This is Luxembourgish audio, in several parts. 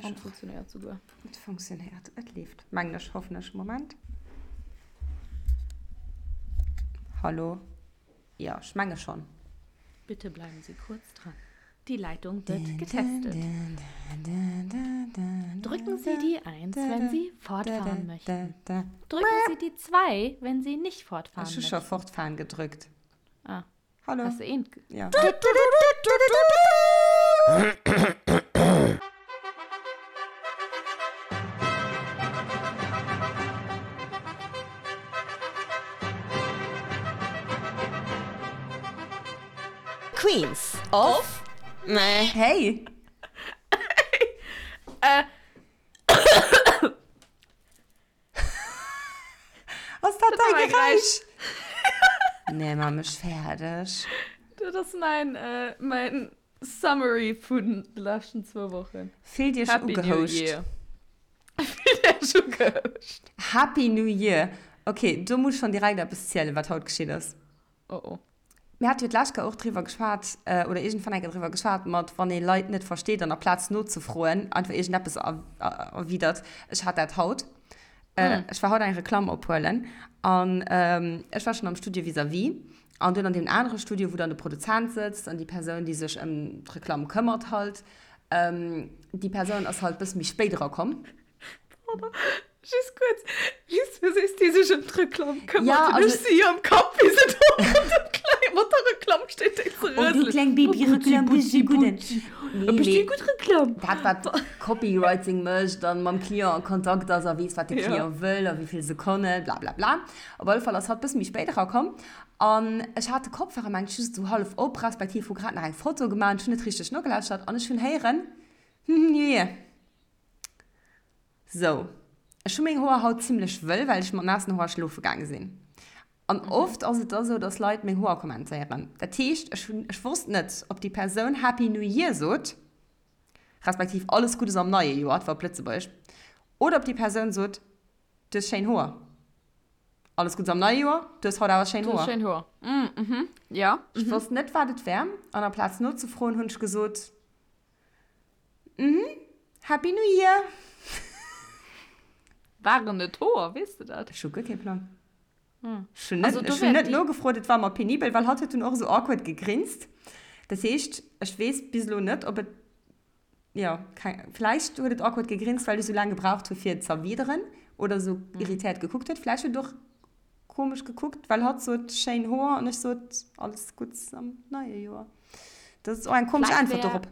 An et funktionéiert souguer. Et funktionéiert, et leeft, mengen ech, hoffen ech. Moment. Hallo? Jo, ech menge schonn. Bitte bleiben Sie kurz dran. Die Leitung wird getestet. Drücken Sie die 1, wenn Sie fortfahren möchten. Drücken Sie die 2, wenn Sie nicht fortfahren Ech hu möchten. scho fortfahren gedrückt. Ah. Hallo. Hast du een? Ja. Queens of Hey. Äh. Ass dat däi Geräisch? Nee, ma mech fäerdeg. Dat ass mäin, äh, mäin Summary vun de leschten zwou Wochen. Fillt iech Happy New ugehouscht. Year. Fillt iech ugehouscht. Happy New Year. Okay, do muss ech schonn direkt eppes zielen, wat haut geschitt ass. Oh oh. Mir hate jo d'lescht Kéier och driwwer geschwat, oder iergendwann eng Kéier driwwer geschwat, mat wann ee Leit net versteet an aplaz nozefroen einfach iergendeppes erwidert. Ech hat dat haut. Ech war haut eng Reklamm ophuelen an ech war schonn am Studio vis-à-vis an dunn an deem anere Studio, wou dann de Produzent sëtzt an déi Persoun, déi sech ëm d'Reklamm këmmert halt. Déi Persoun ass halt bësse méi spéit erakomm. Pardon, just kuerz, just wéi sees déi sech ëm d'Reklamm këmmert, Ja, hunn also ech si am Kapp, wéi se do mat dem Kleng, mat der Reklamm steet, déi ze Oh, déi rëselen. kleng Oh, Butzi, Babyreklamm, Butzi, déi gudden. Butzi. Nee, E bëssi mee gutt Reklamm. dat, wat Copywriting mécht an mam Client a Kontakt ass a weess, wat de Ja. Client wëll a wéi vill Sekonnen, bla bla bla. Op alle Fall ass hatt bësse méi spéit erakomm an ech hat de Kopfhörer, mengt, just esou hallef op, respektiv hu grad nach eng Foto gemaach an ech hunn net richteg nogelauschtert an ech hunn héieren, Hm, nee. Sou, ech hu meng Hoer haut zimlech wëll, well ech mat naassen Hoer schlofe gaange sinn. An oft ass et da sou, dass Leit meng Hoer kommentéieren. Dat heescht, ech hunn, ech wosst net, ob déi Persoun Happy New Year sot, respektiv alles Guddes am neie Joer, et war op Lëtzebuergesch, oder ob déi Persoun sot, Du hues schéin Hoer. Alles Guddes am neie Joer, du hues haut awer schéin Du hues Hoer. schéin Hoer. Mhm, ja. Ech wosst net, wat et war, an amplaz nozefroen, hunn ech gesot, Mhm, Happy New Year! Waren et Hoer, weess de dat? Ech hu guer kee Plang. Ech hunn Also net, do ech hunn wär net déi. nogefrot, et war mer penibel, well hatt huet dunn och esou awkward gegrinst. Dat heescht, ech weess bis elo net, ob et, jo, keng, vläicht huet et awkward gegrinst, well ech esou laang gebraucht hu fir et z'erwideren oder esou irritéiert gekuckt huet. Vläicht huet et och komesch gekuckt, well hatt sot schéin Hoer an ech sot alles Gutts am neie Joer. Dat ass och eng komesch Vläicht Äntwert wär dorop.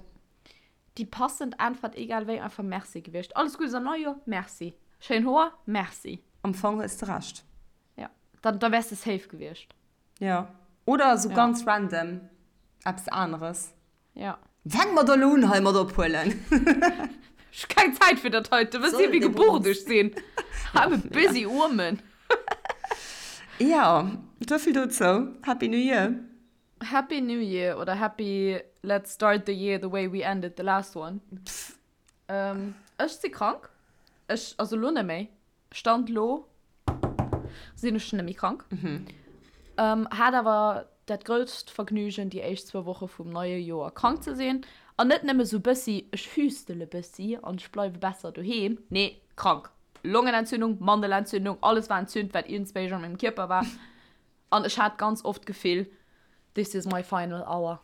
déi passend Äntwert egal wéi einfach Merci gewiescht. Alles Guddes am neie Joer, Merci. Schéin Hoer, Merci. Am Fong hues de Recht. Ja, dann, da wäers de safe gewiescht. Jo. Oder esou Ja. ganz random eppes aneres. Ja. Fänke mer da elo un hei mat ophuelen? Ech hu keng Zäit fir dat heiten. Wësst Dir, wéi gebucht ech sinn? I'm a busy woman. Ja, souvill dozou. Happy New Year! Happy New Year oder Happy Let's start the year the way we ended the last one. Ech si krank. Ech, also elo net méi. Stand lo sinn ech net méi krank. Hat awer dat grousst Vergnügen déi éischt zwou Woche vum neie Joer krank ze sinn. An net nëmme sou bëssi, ech hüstele bëssi an ech bleiwe besser doheem. Nee, krank. Longenentzündung, Mandelentzündung, alles war entzünt, wat iergendswéi an mengem Kierper war. An ech hat ganz oft d'Gefill, this is my final hour.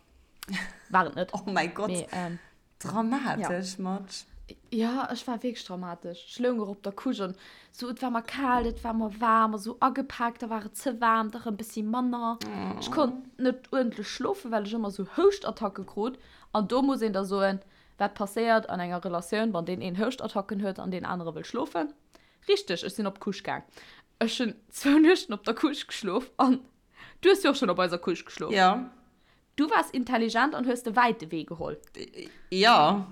War et net. Oh mäi Gott. Mee, ähm, Dramatesch, Matsch. Ja, ech war wierklech dramatesch. Ech loung och op der Couche an sou, et war mer kal, et war mer waarm a sou agepaakt, da war et ze waarm, da rëm bëssi manner. Ech konnt net uerdentlech schlofen, well ech ëmmer sou Houschtattacke krut. An do muss een da soen, wat passéiert an enger Relatioun, wann deen een Houschtattacken huet an deen anere wëll schlofen? Richteg, ech sinn op d'Couche gaang. Ech hunn zwou Nuechten op der Couche geschlof an du hues jo och schonn op eiser Couche geschlof. Jo. Du waars intelligent an hues de wäite Wee geholl. Jo.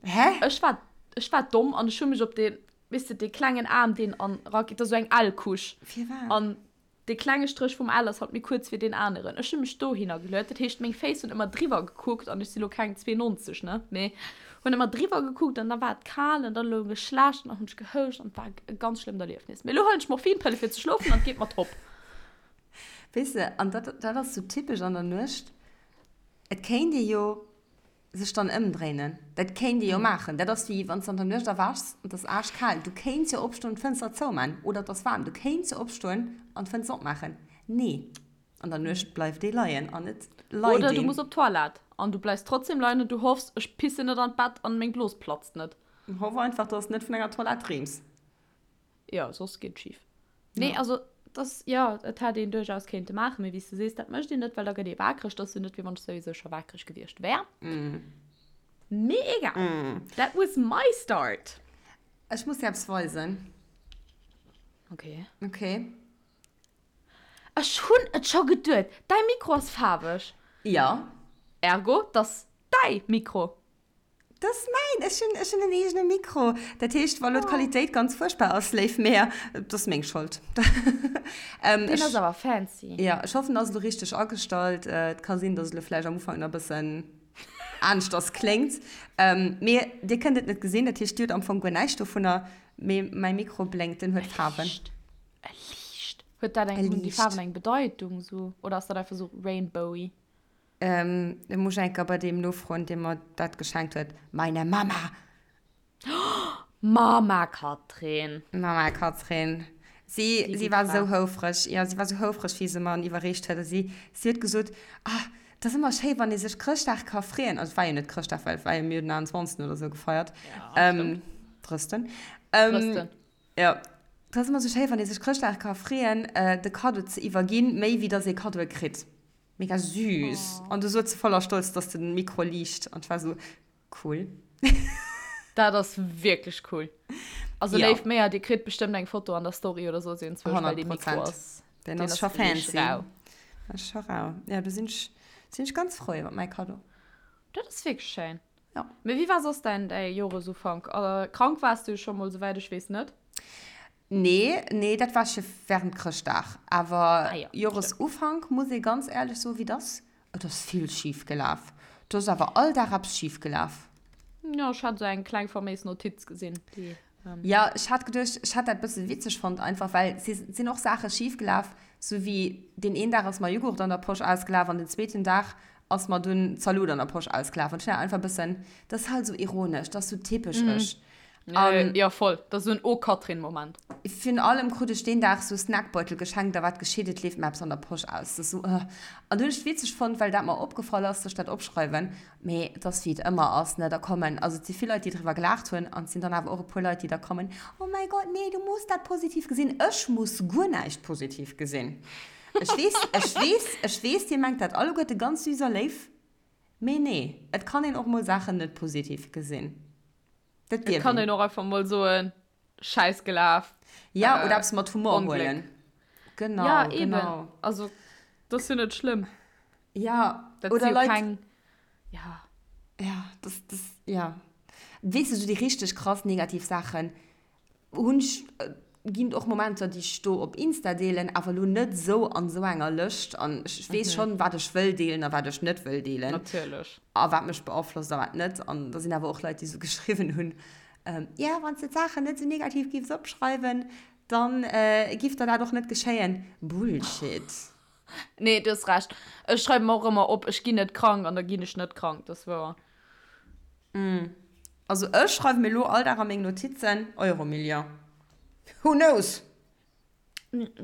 Hä? Ech war, ech war domm an ech hu mech op dee, weess de, dee klengen Aarm, deen an erageet, dat ass esou eng L-Couche. Firwat? An dee klenge Stréch vum L ass halt méi kuerz wéi deen aneren. Ech hu mech dohinner geluet, dat heescht, meng Féiss hunn ëmmer driwwer gekuckt an ech si lo keng 92, ne, mee hunn ëmmer driwwer gekuckt an da war et kal an da loung ech schlecht an dann hunn ech gehouscht an et war e ganz schlëmmt Erliefnis. Mee elo huelen ech Morphinpëlle fir ze schlofen an et geet mer top. Weess de, an dat, dat ass sou typesch an der Nuecht, et kéint ee jo. Sech dann ëmdréinen, dat kéint ee jo maachen. Dat ass wéi wann s de an der Nuecht erwächs an et ass aaschkal. Du kéints jo opstoen an d'Fënster zouman. Oder et ass waarm, du kéints jo opstoen an d'Fënster opmaachen. Nee, an der Nuecht bleift ee leien an et leit Oder du een. muss op d'Toilette an du bleifs trotzdem leien an du hoffs, ech pissen net an d'Bett an meng Blos platzt net. Hoff einfach, dass s net vun enger Toilette dreems. Jo, soss geet et schif. Nee, also das, jo, et hätt een duerchaus kéinte maachen, mee wéi s de sees, dat mécht een net, well da gëtt ee waakreg. Dat ass jo net, wéi wann ech souwisou scho waakreg gewiescht wär. Mee egal, that was my start. Ech muss dir eppes weisen. Okay. Okay. Ech hunn et scho geduet, däi Mikro ass faarweg. Jo. Ergo, 't ass däi Mikro. Dat ass mäin! Ech hunn, ech hunn en eegene Mikro. Dat heescht, wa lo d'Qualitéit ganz fuerchtbar ass, léif Mär, dat ass meng Schold. Deen ass awer fancy. Jo, ech hoffen, en ass elo richteg agestallt. Et ka sinn, dass et elo vläicht am Ufank nach e bëssen aneschters kléngt. Mee dir kënnt et net gesinn, dat heescht, dir hutt am Fong guer näischt dovunner. Mee mäi Mikro blénkt, den huet Faarwen. E liicht. E liicht. Huet dat eng, hunn déi Faarwen eng Bedeitung sou? Oder ass dat einfach sou rainbowy? Ähm, da muss ech eng Kéier bei deem nofroen, dee mer dat geschenkt huet. Meine Mama! Mama Katrin! Mama Katrin. Si, Déi si gutt war Fra. esou houfreg, jo, si war esou houfreg, wéi se mer en iwwerreecht huet. A si, si huet gesot, Ah, et ass ëmmer schéi, wann ee sech Chrëschtdag ka freeën. Also, et war jo net Chrëschtdag, well et war jo, mir hunn den 21. oder esou gefeiert. Ja, Ähm, stimmt. Drësten. Ähm, Drësten. jo. Et ass ëmmer esou schéi, wann ee sech Chrëschtdag ka freeën, de Kaddo ze iwwerginn, méi wéi dass ee Kaddoe kritt. Mega süß. Oh. An du sot se voller Stolz, dass den Mikro liicht. An ech war sou, cool. Dat ass wierklech cool. Also Ja. léif Méa, dir kritt bestëmmt eng Foto an der Story oder soss iergendzwousch, well dee 100 Mikro Prozent. ass, Den deen ass ass scho wierklech fancy. rau. Ass scho rau. Ja, do sinn ech, sinn ech ganz frou iwwer mäi Kaddo. Dat ass wierklech schéin. Ja. Mee wéi war soss däin, däi Joresufank? Krank waars du jo scho mol, souwäit ech weess, net? Nee, nee, dat war scho während Chrëschtdag. Awer Ah jo, stimmt. Joresufank, muss ee ganz éierlech soen, wéi et ass, et ass vill schif gelaf. Do ass awer all Dag eppes schif gelaf. Jo, ech hat esou eng kleng faméis Notiz gesinn, déi. Jo, ech hat geduecht, ech hat dat bësse witzeg fonnt einfach, well si sinn och Saache schif gelaf, sou wéi deen een Dag ass mer Jughurt an der Posch ausgelaf an den zweeten Dag ass mer dunn Zaloot an der Posch ausgelaf. An ech hunn dat einfach bëssen, dat ass halt esou ironesch, dat ass sou typesch ech. An ja, voll. Dat ass esou en Oh-Katrin-Moment. Virun allem krut ech deen Dag sou Snackbeutel geschenkt a wat geschitt, et leeft mer eppes an der Posch aus. Dat ass sou, ëh. An du hunn ech et witzeg fonnt, well dat mer opgefall ass, dass ech dat opschreiwen. Mee et ass wéi et ëmmer ass, ne, da kommen, also et si vill Leit, déi driwwer gelaacht hunn an et sinn dann awer och e puer Leit, déi da kommen, Oh mäi Gott, nee, du muss dat positiv gesinn. Ech muss guer näischt positiv gesinn. Ech weess, ech weess, ech weess, dir mengt dat alleguerte ganz süß a léif, mee nee, et kann een och mol Saachen net positiv gesinn. Dat Et kann een och einfach mol soen, Schäiss gelaf. Ja, oder eppes mat Humor huelen. Genau, ja, eben. Genau. Also, dat ass jo net schlëmm. Ja, dat oder jo Leit. Keng, ja. Ja, das, das, ja. Weess du, sou déi richteg krass negativ Saachen hunn ech, ginn et och Momenter, déi ech do op Insta deelen, awer elo net esou an esou enger Lëscht. An ech weess schonn, wat ech wëll deelen a wat ech net wëll deelen. Natierlech. A wat mech beaflosst a wat net. An da sinn awer och Leit, déi esou geschriwwen hunn, Jo, wann s de d'Saachen net esou negativ giffs opschreiwen, da giff der dat och net geschéien. Bullshit. Nee, du hues Recht. Ech schreiwe mer och ëmmer op, ech ginn net krank an da ginn ech net krank. Dat ass wouer. Also ech schreiwe mir elo all Dag a meng Notizen, Euromillion. Who knows?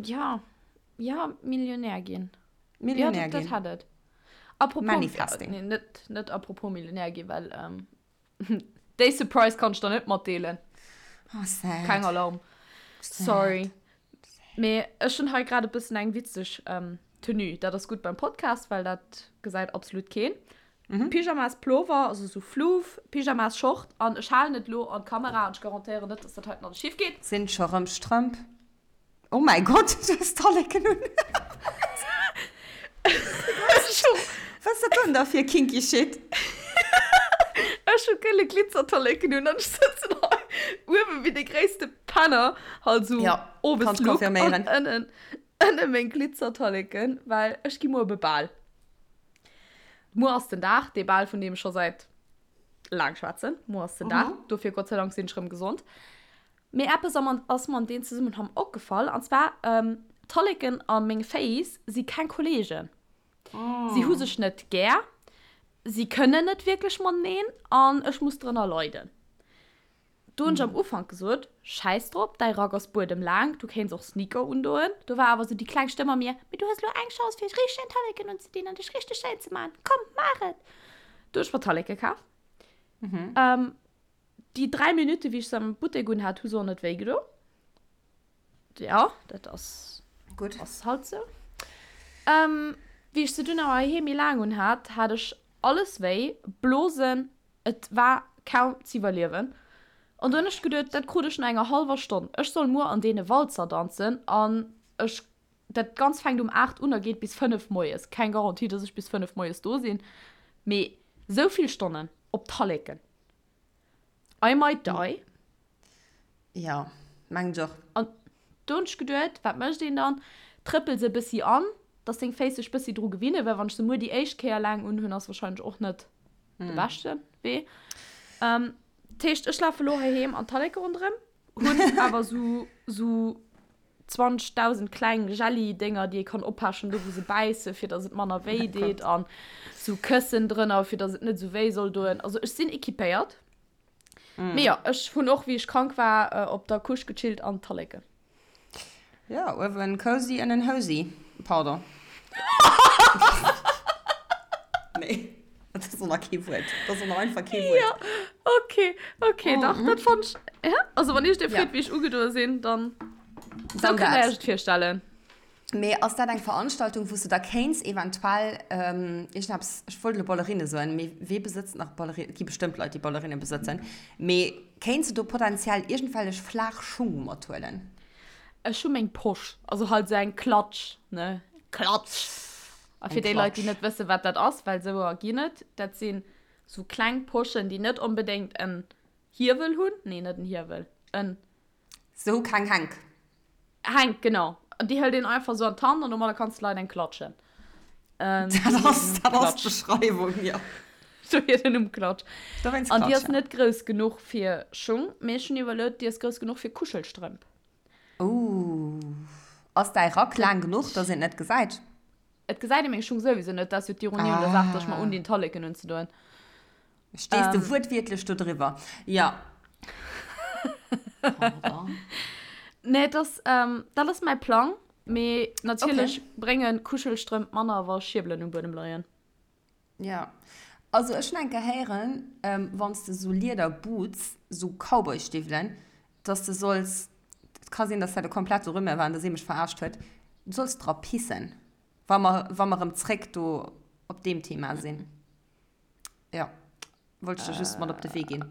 Ja, ja, Millionär ginn. Millionär ja, dat, ginn. Dat hätt et. Apropos, Manifesting. Nee, net, net apropos Millionär ginn, well ähm, déi Surprise kann ech der net matdeelen. Oh, sad. Keng Alarm. Sad. Sorry. Mee ech hunn hei grad e bëssen eng witzeg Tenue. Dat ass gutt beim Podcast, well dat gesäit absolut keen. Pyjamas Plover, also sou Floof, Pyjamas Short an ech halen et lo an d'Kamera an ech garantéieren net, dass dat heiten alles schief geet. Sinn scho rëm Strëmp? Oh mäi Gott, du hues Talleken un. Wat ass dat dann da fir kinky Shit? Ech hu gëlle Glitzertalleken un an ech sëtzen hei uewe wéi de gréisste Penner, halt sou Ja, Owes kann ech Look an confirméieren. ënnen ënne meng Glitzertalleken, well ech gi muer op e Bal. Muer ass den Dag, dee Bal vun deem ech scho säit laang schwätzen. Muer ass den Dag, dofir Gott sei Dank sinn ech rëm gesond. Mee eppes ass mer an deem Zesummenhang opgefall, an zwar, D'Talleken a meng Féiss si keng Kolleegen. Si hu sech net gär. Si kënnen net wierklech mateneen an ech muss drënner leiden. Do hunn ech am Ufank gesot, Schäiss drop, däi Rack ass buedemlaang, du kéints och Sneaker undoen. Do war awer sou déi kleng Stëmm a mir, Mee du hues elo eng Chance, fir richteg schéin Talleken unzedinn an dech richteg schéin ze maachen. Komm, maach et! Do hunn ech mer Talleke kaf. Déi 3 Minutte wéi ech se am Buttek un hat, hu se och net wéi gedo. Jo, dat ass Gutt. Ass halt sou. Wéi ech se dunn awer heiheem méi laang un hat, hat ech alles wéi, Blosen, Et war kaum z'iwwerliewen. An do hunn ech geduet, dat krut ech no enger hallwer Stonn. Ech soll muer an deene Walzer danzen an ech, dat Ganzt fänkt um 8 un a geet bis 5 moies. Keng Garantie, dass ech bis 5 moies do sinn, mee sou vill Stonnen op Talleken. I might die. Jo, mengen ech och. An do hunn ech geduet, wat mécht een dann? Trëppels e bëssi an, dass deng Féiss sech bëssi dru gewinnen, well wann ech se muer déi éischt Kéier laang unhunn, ass wahrscheinlech och net de beschte Wee. Dat heescht, ech lafe lo heiheem an d'Talleke ronderëm, hunn awer sou sou 20.000 kleng Jelli-Dénger, déi ee kann oppechen, do wou se bäissen, fir dass et manner wéi deet, an sou Këssen drënner, fir dass et net sou wéi soll doen. Also ech sinn equipéiert. Mm. Mee jo, ech hunn och, wéi ech krank war, äh, op der Couche gechillt an Talleken. Ja, uewen cozy, ënnen hosy. Pardon. Nee, dat ass och nach kee Wuert. Dat ass och nach einfach kee Wuert. Ja, okay, okay, mm. dach, dat fand ich. Ja? Also, wann ich dir freet, ja. wéi ech ugedoe sinn, dann. Dann so kënnt Dir iech et virstellen. Mee ass dat eng Veranstaltung, wou s de da kéints eventuell iergendeppes, ech wollt elo Ballerinne soen, mee wee besëtzt nach Ballerinnen? Et gi bestëmmt Leit, déi Ballerinne besëtzen. Mee kéints de do potenziell iergendwellech flaach Schung mathuelen? Ech hu meng Posch, also halt esou eng Klatsch, ne? Klatsch! A fir déi Leit, déi net wëssen, wat dat ass, well esouer ginn et, dat sinn esou kleng Poschen, déi net onbedéngt en Hiewel hunn, nee, net en Hiewel, en. Se hu keng Hänk. Hänk, genau. An déi hëlt een einfach sou an d'Hand an domadder kanns de Leit eng klatschen. Dat ass, dat ass d'Beschreiwung, jo. Dohier den Numm Klatsch. Dowéinst An déi Klatsch, ass ja. net grouss genuch fir Schung, mee ech hunn iwwerluet, déi ass grouss genuch fir Kuschelstrëmp. Ooh. Ass däi Rack laang genuch, dass een et net gesäit? Et gesäit ee meng Schung souwisou net, dat ass jo d'Ironie un der Saach, dass ech mer undinn, Talleken unzedoen. Stees de wuertwiertlech do driwwer? Ja. Pardon. Nee, das, ähm, dat ass mäi Plang. Mee natierlech Okay. brénge Kuschelstrëmp manner, wa Schierbelen um Buedem leien. Ja. Also ech hunn eng Kéier héieren, ähm, wann s de sou Lieder-Boots, sou Cowboy-Stiwwelen, dass de solls, et ka sinn, dass dat e komplette Rumeur war an dass ee mech verarscht huet, du solls dra pissen, wa mer, wa mer erëm zréck do op deem Thema sinn. Ja, wollt ich dir just mat op de Wee ginn.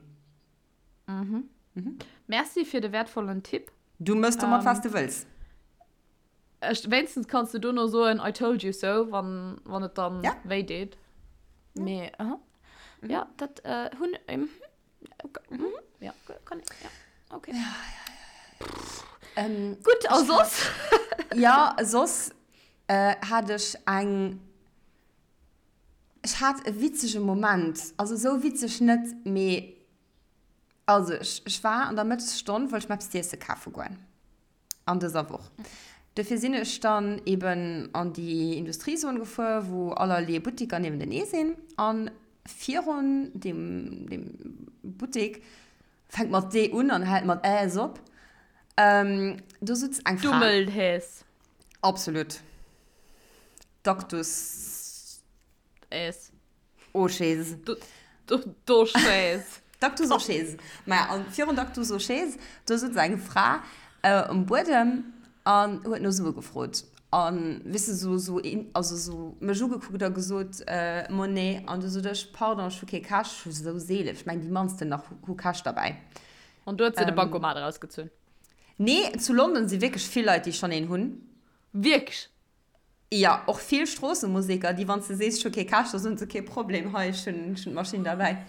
Mhm. Mhm. Merci fir de wertvollen Tipp. Du mëss domat, was du wëlls. Ech, wéinstens kanns du dono soen, I told you so, wann, wann et dann Ja. wéi deet. Mee, aha. Mhm. Ja, dat äh, hunn, ähm, mhm. Ja, kann, ja, okay. Ähm, Gutt, a soss? ja, soss äh, hat ech eng Ech hat e witzege Moment, also esou witzeg net, mee also ech, ech war an der Mëttesstonn, wollt ech mer eppes z'iesse kafe goen an dëser Woch. Dofir sinn ech dann eben an déi Industriezon gefuer, wou allerlee Buttiker niewentenee sinn. A virun deem, deem Buttek, fänkt mat D un an hält mat Äs op, do sutz eng Fra. Dummelhäs. Absolut. Dactus. Äs. Oschäs. Doschäs. Dactus Oschäs. Maja, an virun Dactus Oschäs, do sutz eng Fra um Buedem an huet no Sue gefrot. An, weess de, sou, sou, also sou mech ugekuckt a gesot, Monnaie. An du sot ech, Pardon, ech hu kee Cash. Ech hu sou seelen, ech mengen déi mannsten nach hu Cash derbäi. An du huet se de Bancomat erausgezunn? Nee, zu London si wierklech vill Leit, déi schonn een hunn. Wierklech? Jo, och vill Stroossemuseker, déi wann s de sees, ech hu kee Cash, da soen se, kee Problem, hei, ech hunn d'Maschinn derbäi.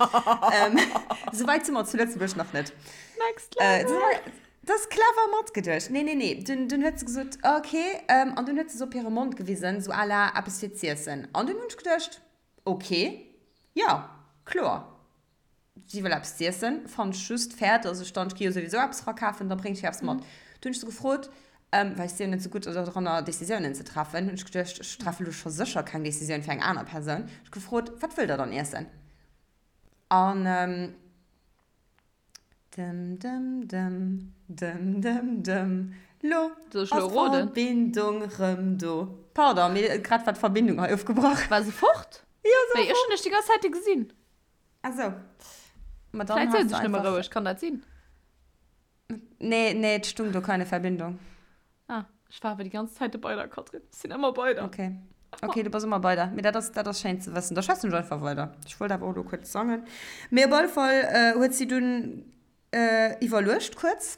Souwäit si mer zu Lëtzebuerg nach net. Next level! Dat ass clever matgeduecht. Nee, nee, nee. Dunn, dunn huet se gesot, ok, an dunn huet se se op hire Mond gewisen, sou à la eppes fir z'iessen. An dunn hunn ech geduecht, ok, jo, kloer. Si wëll eppes z'iessen, fannt ech just fair, dass ech dann, ech gi jo souwisou eppes era kafen, da bréngt ech hir eppes mat. Dunn hunn ech se gefrot. Well ech si jo net esou gutt dodranner, Decisiounen ze treffen, hunn ech geduecht, ech treffe lo scho sécher keng Decisioun fir eng aner Persoun. Ech gefrot, Wat wëllt Der dann iessen? An dëm dëm dëm, dëm dëm dëm, lo Soll ech ass lo roden? d'Verbindung rëm do. Pardon, mee grad war d'Verbindung hei ofgebrach. War se fort? Jo, se war Wéi, ech fort. hunn dech déi ganz Zäite gesinn. Ah sou. Ma dann Vläit has souz de ech nëmme einfach. roueg, kann dat sinn? Nee, nee, et stung do keine Verbindung. Ah, ech war awer déi ganz Zäite bei der, Katrin. Ech sinn ëmmer bei der. Okay. Okay, du bass ëmmer bei der. Mee dat ass, dat ass schéin ze wëssen. Da schwätzen ech einfach weider. Ech wollt awer och elo kuerz sangen. Mee op alle Fall huet si dunn iwwerluecht kuerz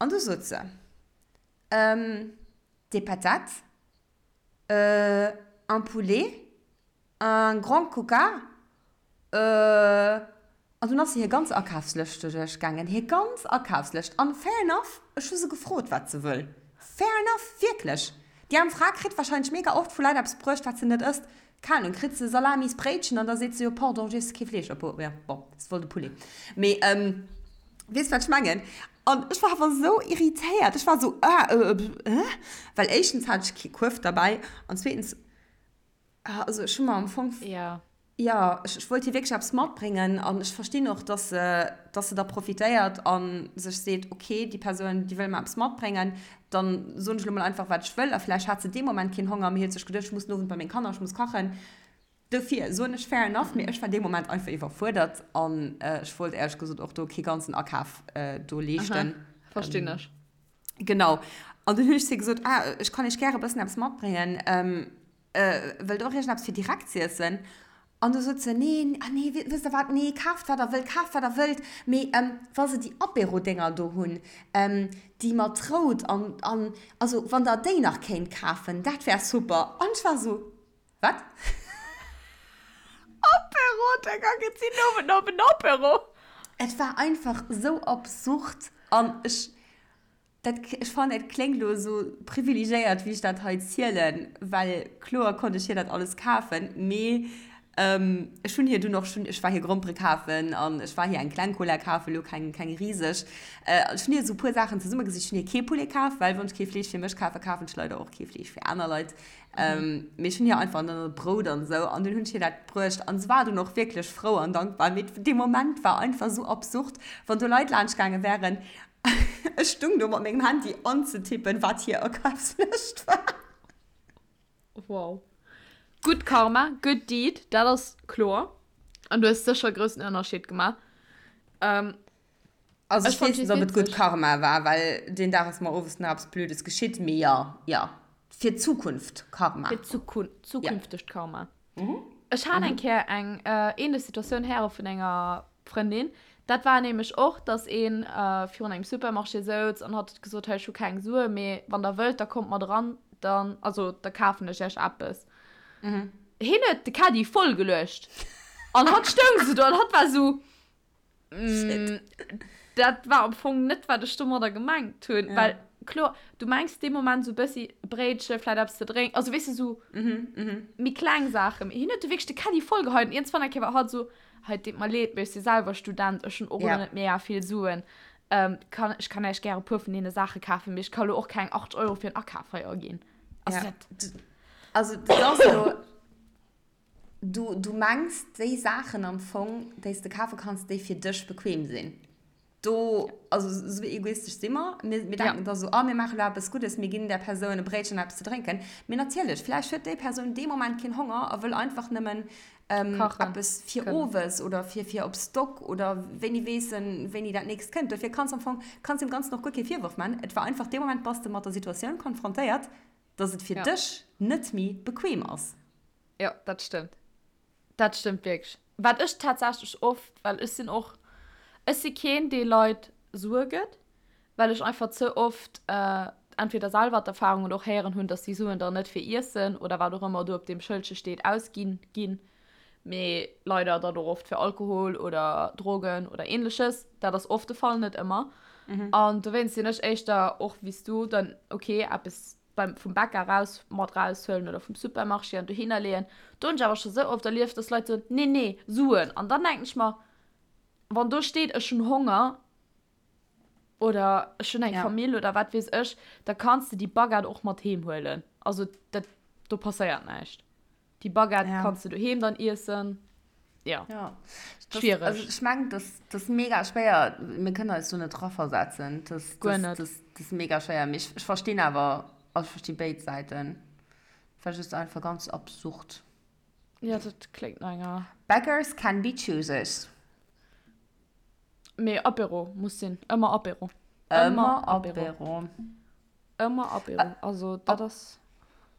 an du sot se, Des patates, un poulet, Un grand coca? Euh. An dunn ass se hir ganz Akafslëscht duerchgaangen. Hir ganz Akafslëscht. An fair enough, ech hu se gefrot, wat se wëll. Fair enough, wierklech. Déi aarm Fra kritt warscheinlech mega oft vu Leit eppes bruecht, wat se net ësst. Keng Ahnung, kritt se Salamisbréitchen an da seet se, jo pardon, ech iesse kee Fleesch. Obwuel, jo, bon, se wollt e Poulet. Mee, weess wat ech mengen? An ech war awer esou irritéiert. Ech war esou, ah, euh, äh? Well éischtens hat ech kee Kuerf derbäi an zweetens, Ah, also ech hu mer am Fong. Ja. Ja, ech, ech wollt hir wierklech eppes matbréngen an ech verstinn och, dass se, dass se da profitéiert a sech seet, okay, déi Persoun, déi wëll mer eppes matbréngen, dann soen ech elo mol einfach, wat ech wëll. A vläicht hat se dee Moment keen Honger, mee huet sech geduecht, ech muss den Owend bei meng Kanner, ech muss kachen. Dofir soen ech fair enough, mee ech war dee Moment einfach iwwerfuerdert an ech wollt éierlech gesot och do kee ganzen Akaf do leeschten. Aha, verstinn ech. Genau. An dunn hunn ech zu hir gesot, ah, ech kann iech gäre e bëssen eppes matbréngen. Wëllt och iergendeppes fir direkt z'iessen? An du sot se, Nee, ah nee, wësst der wat, nee, kaaft wat der wëllt, kaaft wat der wëllt, mee wa se déi Apéro-Dénger do hunn, déi mat rout an, an, also wann der déi nach kéint kafen, dat wär super. An ech war esou, Wat? Apéro-Dénger, gëtt si den Owend nach op en Apéro? Et war einfach esou absurd an ech. Dat, ech fannen, et kléngt elo esou privilegéiert, wéi ech dat hei zielen, well kloer konnt ech hir dat alles kafen, mee ech hunn hir dunn och schonn, ech war hir Grompere kafen an ech war hir eng kleng Cola kafen, elo keng, keng riseg. Ech hunn hir esou e puer Saachen zesummegesicht. Ech hunn hir kee Poulet kaf, well wann ech kee Fleesch fir mech kafen, kafen ech leider och kee Fleesch fir aner Leit. Mee ech hunn hir einfach dann e Brout an esou an dunn hunn ech hir dat bruecht an se war dunn och wierklech frou an dankbar. Mee dee Moment war einfach esou absurd, wann do Leit laanscht gaange wären, Ech stung do mat mengem Handy anzetippen, wat hir Akafslëscht war. Wow. Gutt Karma, good deed, dat ass kloer. An du hues sécher e groussen Ënnerscheed gemaach. Ähm, Also ech ech fand weess just net, ob et gutt witzeg. Karma war, well deen Dag ass mer owes nach eppes Blödes geschitt, mee jo, jo, fir d'Zukunft Karma. Fir d'Zukun zukünftegt Karma. Ech hat eng Kéier eng ähnlech Situatioun héiere vun enger Frëndin. Dat war nämlech och, dass ee virun engem Supermarché souz an hatt huet gesot, hei ech hu keng Sue, mee wann der wëllt, da kommt mat eran, dann, also da kafen ech iech eppes. Hien huet de Caddie voll geluecht an hatt stoung sou do an hatt war sou, Dat war am Fong net, wat ech domadder gemengt hunn. Ja. Well, kloer, du mengs dee Moment sou e bëssi e Bréitche, vläit eppes ze drénken, also weess de, sou méi kleng Saachen. Mee hien huet du wierklech de Caddie vollgeheit an iergendwann eng Kéier war hatt sou, Hei, et deet mer leed, mee ech si selwer Student, ech hunn och elo net mega vill Suen. Kann, ech kann Iech gär e puer vun deene Saache kafen, mee ech ka lo och keng 8 Euro fir en Akaf hei aginn. Also Ja. dat. Also, dat ass elo. Du, du mengs déi Saachen am Fong, déi s de kafe kanns, déi fir dech bequem sinn. Do, also esou egoistesch si mer. Mir, mir denken da sou, ah, mir maache lo eppes Guddes, mir ginn där Persoun e Bréitchen an eppes ze drénken. Mee natierlech, vläicht huet déi Persoun dee Moment keen Honger a wëll einfach nëmmen eppes fir owes oder fir, fir op Stock oder wéini weess en, wéini dat nächst kënnt. Dofir kanns am Fong, kanns deem Ganzen och guer kee Virworf man. Et war einfach, dee Moment bass de mat der Situatioun konfrontéiert, dass et fir dech net méi bequem ass. Jo, dat stëmmt. Dat stëmmt wierklech. Wat ech tatsächlech oft, well ech sinn och, ech si keen, dee Leit Sue gëtt, well ech einfach ze oft entweder selwer d'Erfahrung oder och héieren hunn, dass déi Suen dann net fir Iessen oder wat och ëmmer do op deem Schëldche steet ausginn ginn, mee leider dann och oft fir Alkohol oder Drogen oder Ähnleches. Dat ass oft de Fall, net ëmmer. An dowéinst sinn ech éischter och wéi s du dann, okay, eppes beim vum Bäcker raus mat raushuelen oder vum Supermarché an dohinner leeën. Do hunn ech awer scho sou oft erlieft, dass Leit soen, nee, nee, Suen. An dann denken ech mer, wann do steet, ech hunn Honger, Oder ech hunn eng Ja. Famill oder wat weess ech, da kanns de déi Baguette och mat heem huelen. Also dat, do passéiert näischt. Déi Baguette Ja. kanns de doheem dann iessen. Ja. Ja. Das, Schwiereg. also ech mengen, das, das mega schwéier. Mir kënnen eis do net draversetzen. Das, Guer das, net. das, das mega schwéier. Mee ech, ech verstinn awer, also ech versti béid Säiten. War just einfach ganz absurd. Ja, dat kléngt no enger. Beggars can be choosers. Mee Apéro muss sinn. Ëmmer Apéro. Ëmmer Apéro. Ëmmer Apéro. Also dat ass.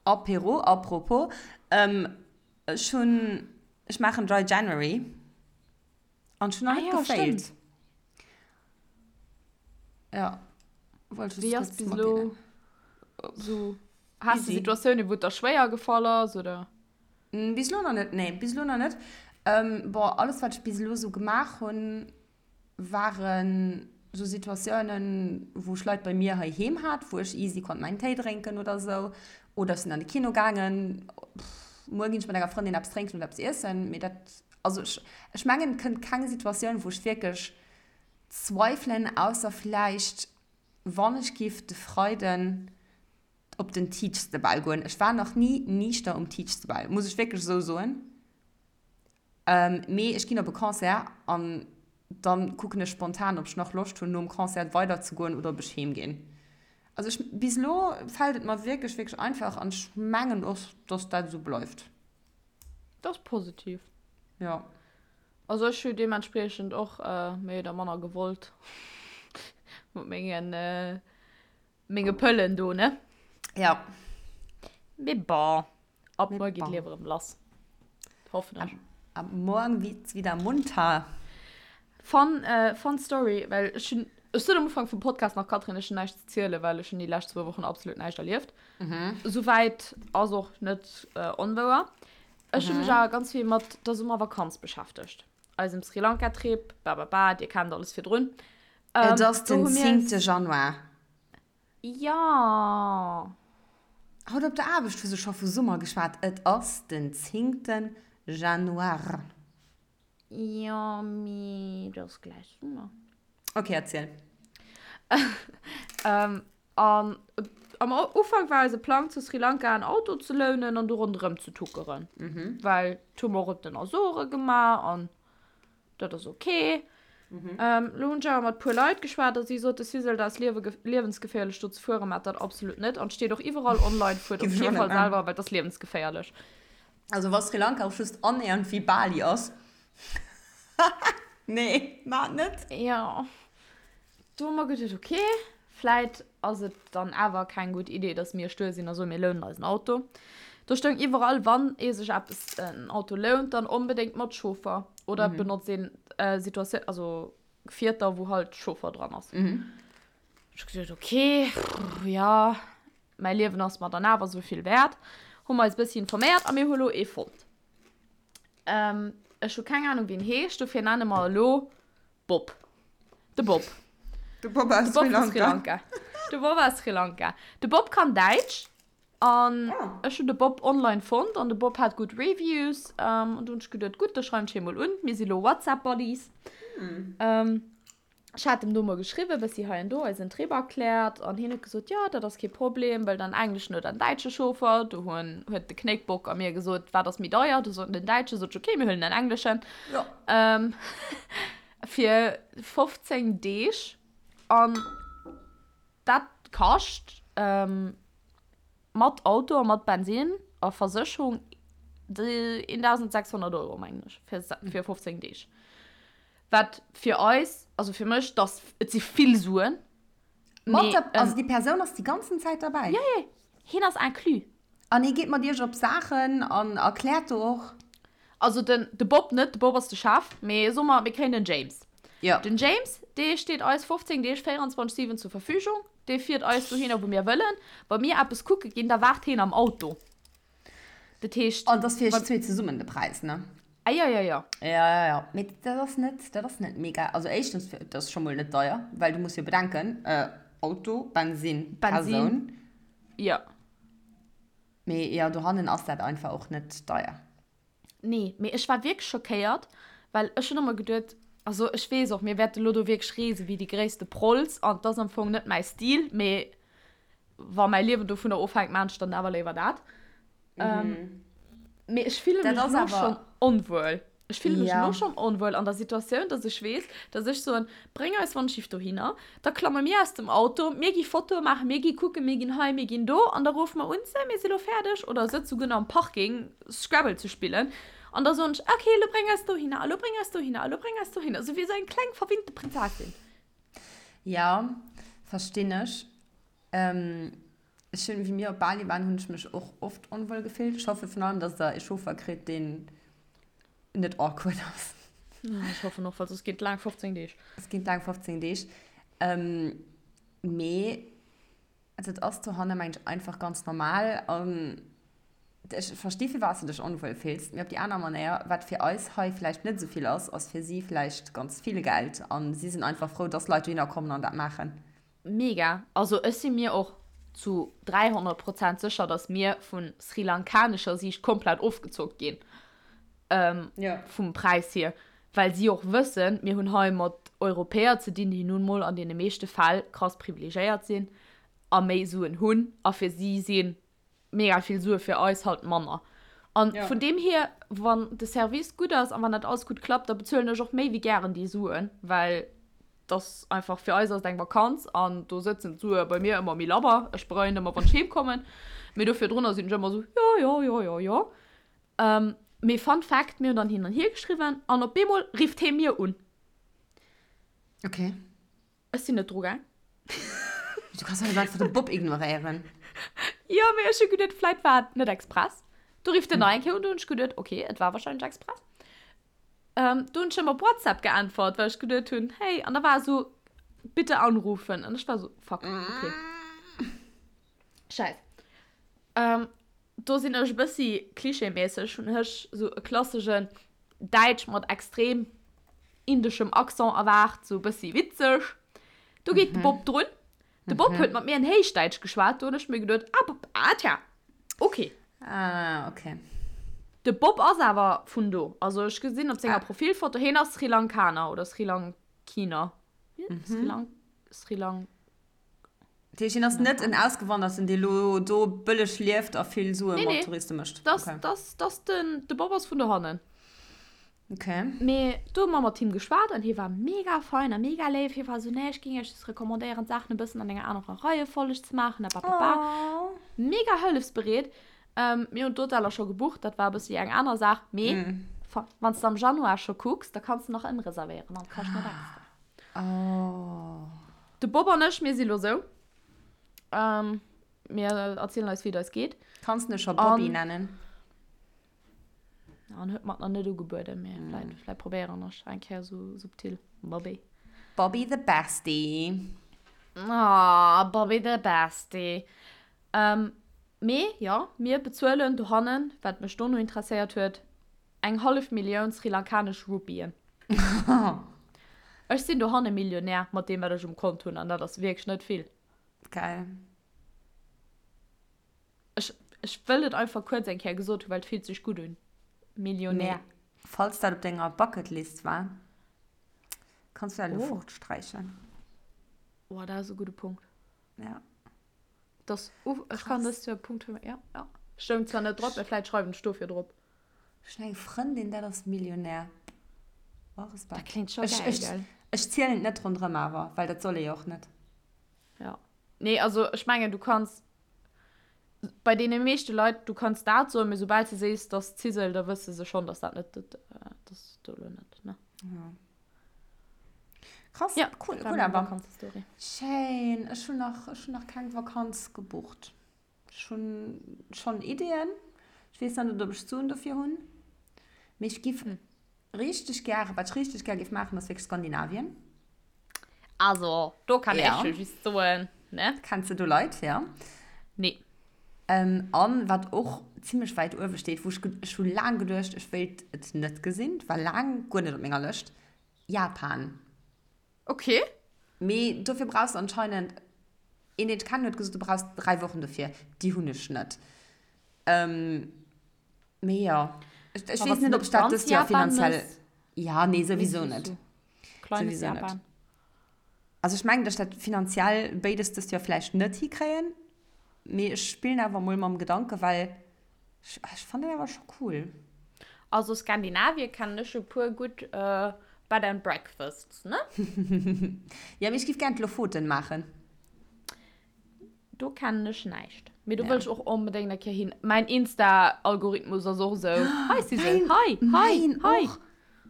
Apéro, apropos, ech hunn, ech maachen Dry January an ech hunn nach Ah net jo, gefailt. stimmt. Ja, wollt just Wéi ass kurz bis elo matdeelen. sou? Has de Easy. Situatiounen, wou et der schwéier gefall ass, oder? Bis elo nach net, nee, bis elo nach net. Bon, alles wat ech bis elo sou gemaach hunn, waren sou Situatiounen, wou ech Leit bei mir heiheem hat, wou ech easy konnt mäin Téi drénken oder sou. Oder ech sinn an de Kino gaangen. Muer ginn ech mat enger Frëndin eppes drénken oder eppes iessen. Mee dat, also ech, ech mengen, et kënnt keng Situatioun, wou ech wierklech zweifelen, ausser vläicht, wann ech giff de Freiden op den Teach the Ball goen. Ech war nach ni niichter um Teach the Ball, muss ech wierklech esou soen. Mee ech ginn op e Concert an dann kucken ech spontan, ob ech nach Loscht hunn, nom Concert weider ze goen oder ob ech heem ginn. Also ech, bis elo fält et mer wierklech, wierklech einfach an ech mengen och, dass dat esou bleift. Dat ass positiv. Jo. Also ech hu deementspriechend och méi oder manner gewollt mat mengen Menge Pëllen do, ne? Ja. Mee bon, ab muer geet d'Liewe rëm lass. Hoffen ech. Ab morgen wird's wieder munter. Fun, fun Story, well ech hunn, ech sot am Ufank vum Podcast nach, Catherine, ech hunn näischt ze zielen, well ech hunn déi lescht zwou Wochen absolut näischt erlieft. Souwäit ass och net onwouer. Ech hu mech awer ganz vill mat der Summervakanz beschäftegt. Eisem Sri Lanka Trip, bababa, dir kennt alles virdrun. Et ass den 10. Januar. Jo. Haut op der Aarbecht hu se scho vu Summer geschwat. Et ass den 10. Januar. Jo, mee et ass gläich Summer. Ok, erziel. An am Ufank war eise Plang zu Sri Lanka en Auto ze lounen an do ronderëm ze tuckeren. Well dat hu mer och op den Azore gemaach an dat ass ok. Lo hunn ech awer mat puer Leit geschwat a si sote Sisel, dat ass liewensgeféierlech do ze fueren, maacht dat absolut net an et steet och iwwerall online, fuert op kee Fall selwer, well et ass liewensgeféierlech. Also wa Sri Lanka och just annähernd wéi Bali ass, nee, maacht net. Jo. Do hu mer geduet, ok, vläit ass et dann awer keng gutt Idee, dass mir stuer sinn a soen, mir lounen eis en Auto. Do stoung iwwerall, wann ee sech eppes, en Auto lount, dann onbedéngt mat Chauffer oder et benotzt een Situatioun, also Gefierter, wou halt Chauffer dran ass. Ech hu geduet, ok, jo, mäi Liewen ass mer dann awer esou vill wäert. Hu mer eis e bëssi informéiert a mir hu lo ee fonnt. Ech hu keng Anung, wéi en heescht, dofir nenne mer e lo Bob. De Bob. De Bob aus De Bob Sri vu Lanka. Sri Lanka. De Bob aus Sri Lanka. De Bob kann Däitsch. An Ah. ech hunn de Bob online fonnt an de Bob hat gutt Reviews. An du hunn ech geduet, gutt, da schreiwen ech hie mol un. Mir si lo WhatsApp-Buddies. Ech hat em do mol geschriwwen, bëssi hei an do eisen Trip erkläert an hien huet gesot, jo, dat ass kee Problem, wëllt en engleschen oder en däitsche Chauffer. Do hunn, huet de Knéckbock a mir gesot, wat ass méi deier? Du sot den Däitsche, sot ech, okay, mir huelen en engleschen. Jo. Ähm, fir 15 Deeg an dat kascht ähm, mat Auto a mat Bensin a Versécherung 1.600 Euro, mengen ech, fir, fir 15 Deeg. Wat fir eis, also fir mech, dass, et si vill Suen. Mat Mee, der, also déi Persoun ass déi ganzen Zäit derbäi? Jo, jo, hien ass inclus. An hie geet mat iech op Saachen an erkläert do och? Also den, de Bob net, de Bob ass de Chef, mee soe mer, mir kréien den James. Jo. Den James, dee steet eis 15 Deeg 24, 7 zur Verfügung. Dee fiert eis dohinner, wou mir wëllen. Wa mir eppes kucke ginn, da waart hien am Auto. Dat heescht. An dat ass fir iech zwee zesummen de Präis, ne? Ah jo, jo, jo. Ja, ja, ja. Mee dat ass net, dat ass net mega. Also éischtens, dat ass scho mol net deier, well du muss jo bedenken, Auto, Bensin, Persoun. Bensin, jo. Mee jo, dohannen ass dat einfach och net deier. Nee, mee ech war wierklech schockéiert, well ech hunn ëmmer geduet. Also ech weess och, mir wäerte lo do wierklech reese wéi déi gréisste Prolls an 't ass am Fong net mäi Stil, mee wa mäi Liewen dovunner ofhänkt, maan ech dann awer léiwer dat. Mee ech fille mech elo schonn onwuel. Ech fille mech elo schonn onwuel an der Situatioun, dass ech weess, dass ech soen, bréng eis Wandschiff dohinner, da klamme mir aus dem Auto, mir gi Fotoe maachen, mir gi kucken, mir ginn hei, mir ginn do an da ruffe mer un, sou, mir si lo fäerdeg oder sëtze souguer nach am Parking Scrabble ze spillen an da soen ech, ok, elo bréng eis dohinner, elo bréng eis dohinner, elo bréng eis dohinner, sou wéi esou eng kleng verwinnte Prinzessin. Jo, verstinn ech. Ech hunn, wéi mir op Bali waren, hunn ech mech och oft onwuel gefillt. Ech hoffe vun allem, dass der ee Chauffer kritt, deen net awkward ass. Ech hoffen och, well soss ginn et laang 15 Deeg. Et ginn laang 15 Deeg. Mee dat ass dohanne, mengen ech, einfach ganz normal. An ech versti firwat s de dech onwuel fills. Mee op déi aner Manéier, wat fir eis hei vläicht net esou vill ass, ass fir si vläicht ganz vill Geld. A si sinn einfach frou, dass Leit dohinner kommen an dat maachen. Mega! Also ech si mir och zu 300 Prozent sécher, dass mir vu srilankanescher Siicht komplett ofgezockt ginn vum Präis hier, well si och wëssen, mir hunn hei mat Europäer ze dinn, déi nun mol an deene meeschte Fäll krass privilegéiert sinn a méi Suen hunn a fir si si mega vill Sue fir eis halt manner. An vun deem hier, wann de Service gutt ass an wann dat alles gutt klappt, da bezuelen ech och méi wéi gären déi Suen, well dass einfach fir eis ass et eng Vakanz an do sëtzen d'Sue bei mir ëmmer méi labber. Ech bereien ëmmer wann ech heem kommen, mee do virdrunner sinn ech ëmmer esou jo jo jo jo jo. Mee Fun Fact, mir hunn dann hin an hier geschriwwen an op eemol rifft hee mir un. Okay. Ech sinn net dru gaang. Du kanns doch net einfach de Bob ignoréieren. Jo, mee ech hu geduet, vläit war et net express. Du rifft en nach eng Kéier un, du hunn ech geduet, okay, et war wahrscheinlech express. Ähm, du hunn ech him op WhatsApp geäntwert, well ech geduet hunn, hey, an da war esou, bitte anrufen. An ech war esou, fuck, okay. Scheiss. Ähm, do sinn ech e bëssi klischeemässeg, hunn ech esou e klassegen Däitsch mat extrem indeschem Accent erwaart, esou e bëssi witzeg. Do geet de Bob drun. De Bob huet mat mir en Héichdäitsch geschwat, do hunn ech mir geduet, ah, Bob, ah tja, okay. Ah, okay. De Bob ass awer vun do. Also ech gesinn op senger Profilfoto, hien ass Sri Lankaner oder Sri Lankiner. Sri Lank, Sri Lank. Dat heescht, hien ass net en Ausgewanderten, dee lo do bëlleg lieft a vill Sue mat Touriste mécht? Nee, nee, das, das, den, de Bob ass vun dohannen. Okay. Mee do hu mer mat him geschwat an hie war mega fein a mega léif. Hie war esou, nee, ech géing iech just recommandéieren, d'Saachen e bëssen an enger anerer Reiefolleg ze maachen a bababa. Oh. Mega hëllefsbereet. Ähm, mir hunn d'Hoteller scho gebucht, dat war e bëssi eng aner Saach. Mee mm. wann s de am Januar scho kucks, da kanns de nach ëmreservéieren an kascht net extra. Oh. De Bob an ech, mir si lo sou. Ähm, mir erzielen eis, wéi et eis geet. Kanns de scho Bobby nennen? An huet mer et nach net ugebueden, mee vläit, vläit probéieren ech eng Kéier sou subtil. Bobby. Bobby the Bestie. Ah, Bobby the Bestie. Ähm, mee jo, mir bezuelen dohannen, wat mech dono interesséiert huet, eng hallef Millioun srilankanesch Rupien. Ech sinn dohanne Millionär mat deem, wat ech um Kont hunn, an dat ass wierklech net vill. Geil. Ech, ech wëll et einfach kuerz eng Kéier gesot hunn, well et fillt sech gutt un. Millionär. Mee falls dat op denger Bucketlist war, kanns du dat elo fortsträichen. Oh, dat ass e gudde Punkt. Ja. Das, uh, ech kann dëst Joer Punkt fir, ja, ja. Stoung zwar net drop, mä vläit schreiwen ech dofir drop. Ech hunn eng Frëndin, dat ass Millionär. Oh, Respekt. Dat kléngt scho geil, gell? Ech zielen et net ronderëm awer, well dat soll ee jo och net. Ja. Nee, also ech mengen, du kanns bei deene meeschte Leit, du kanns dat soen, mee soubal s de sees, dass Zisel, da wësse se schonn, dass dat net, dass do elo net, ne? Ja. Krass, ja, cool, cool awer. Vakanzestory. Schéin. Ech hunn nach, ech hunn nach keng Vakanz gebucht. Ech hunn schonn Ideeën. Ech weess nach net, ob ech d'Suen dofir hunn. Mee ech giff richteg gären, wat ech richteg gär giff maachen, ass wierklech Skandinavien. Also, do kann ech jo just soen, ne? Kenns de do Leit, ja? Nee. An wat och zimmlech wäit uewe steet, wou ech, ech hu laang geduecht, ech wéilt et net gesinn, war laang guer net op menger Lëscht, Japan. Okay. Mee dofir brauchs de anscheinend, een deen ech kennen huet gesot, du brauchs 3 Wochen dofir, déi hunn ech net. Mee jo, ech weess net, ob ech dat dëst Joer finanziell, ja, nee, souwisou net. Kleines Souwisou net. Japan. Also ech mengen, dass ech dat finanziell béides dëst Joer vläicht net hikréien, mee ech spillen awer mol mam Gedanke, well ech, ech fannen dat awer scho cool. Also Skandinavien kennen ech e puer gutt Bed and Breakfasts, ne? Jo, mee ech giff gären d'Lofoten maachen. Do kennen ech näischt. Mee do wëll ech och onbedéngt eng Kéier hin. Mäin Insta-Algorithmus ass och esou, Hei si se, hei, hei, hei.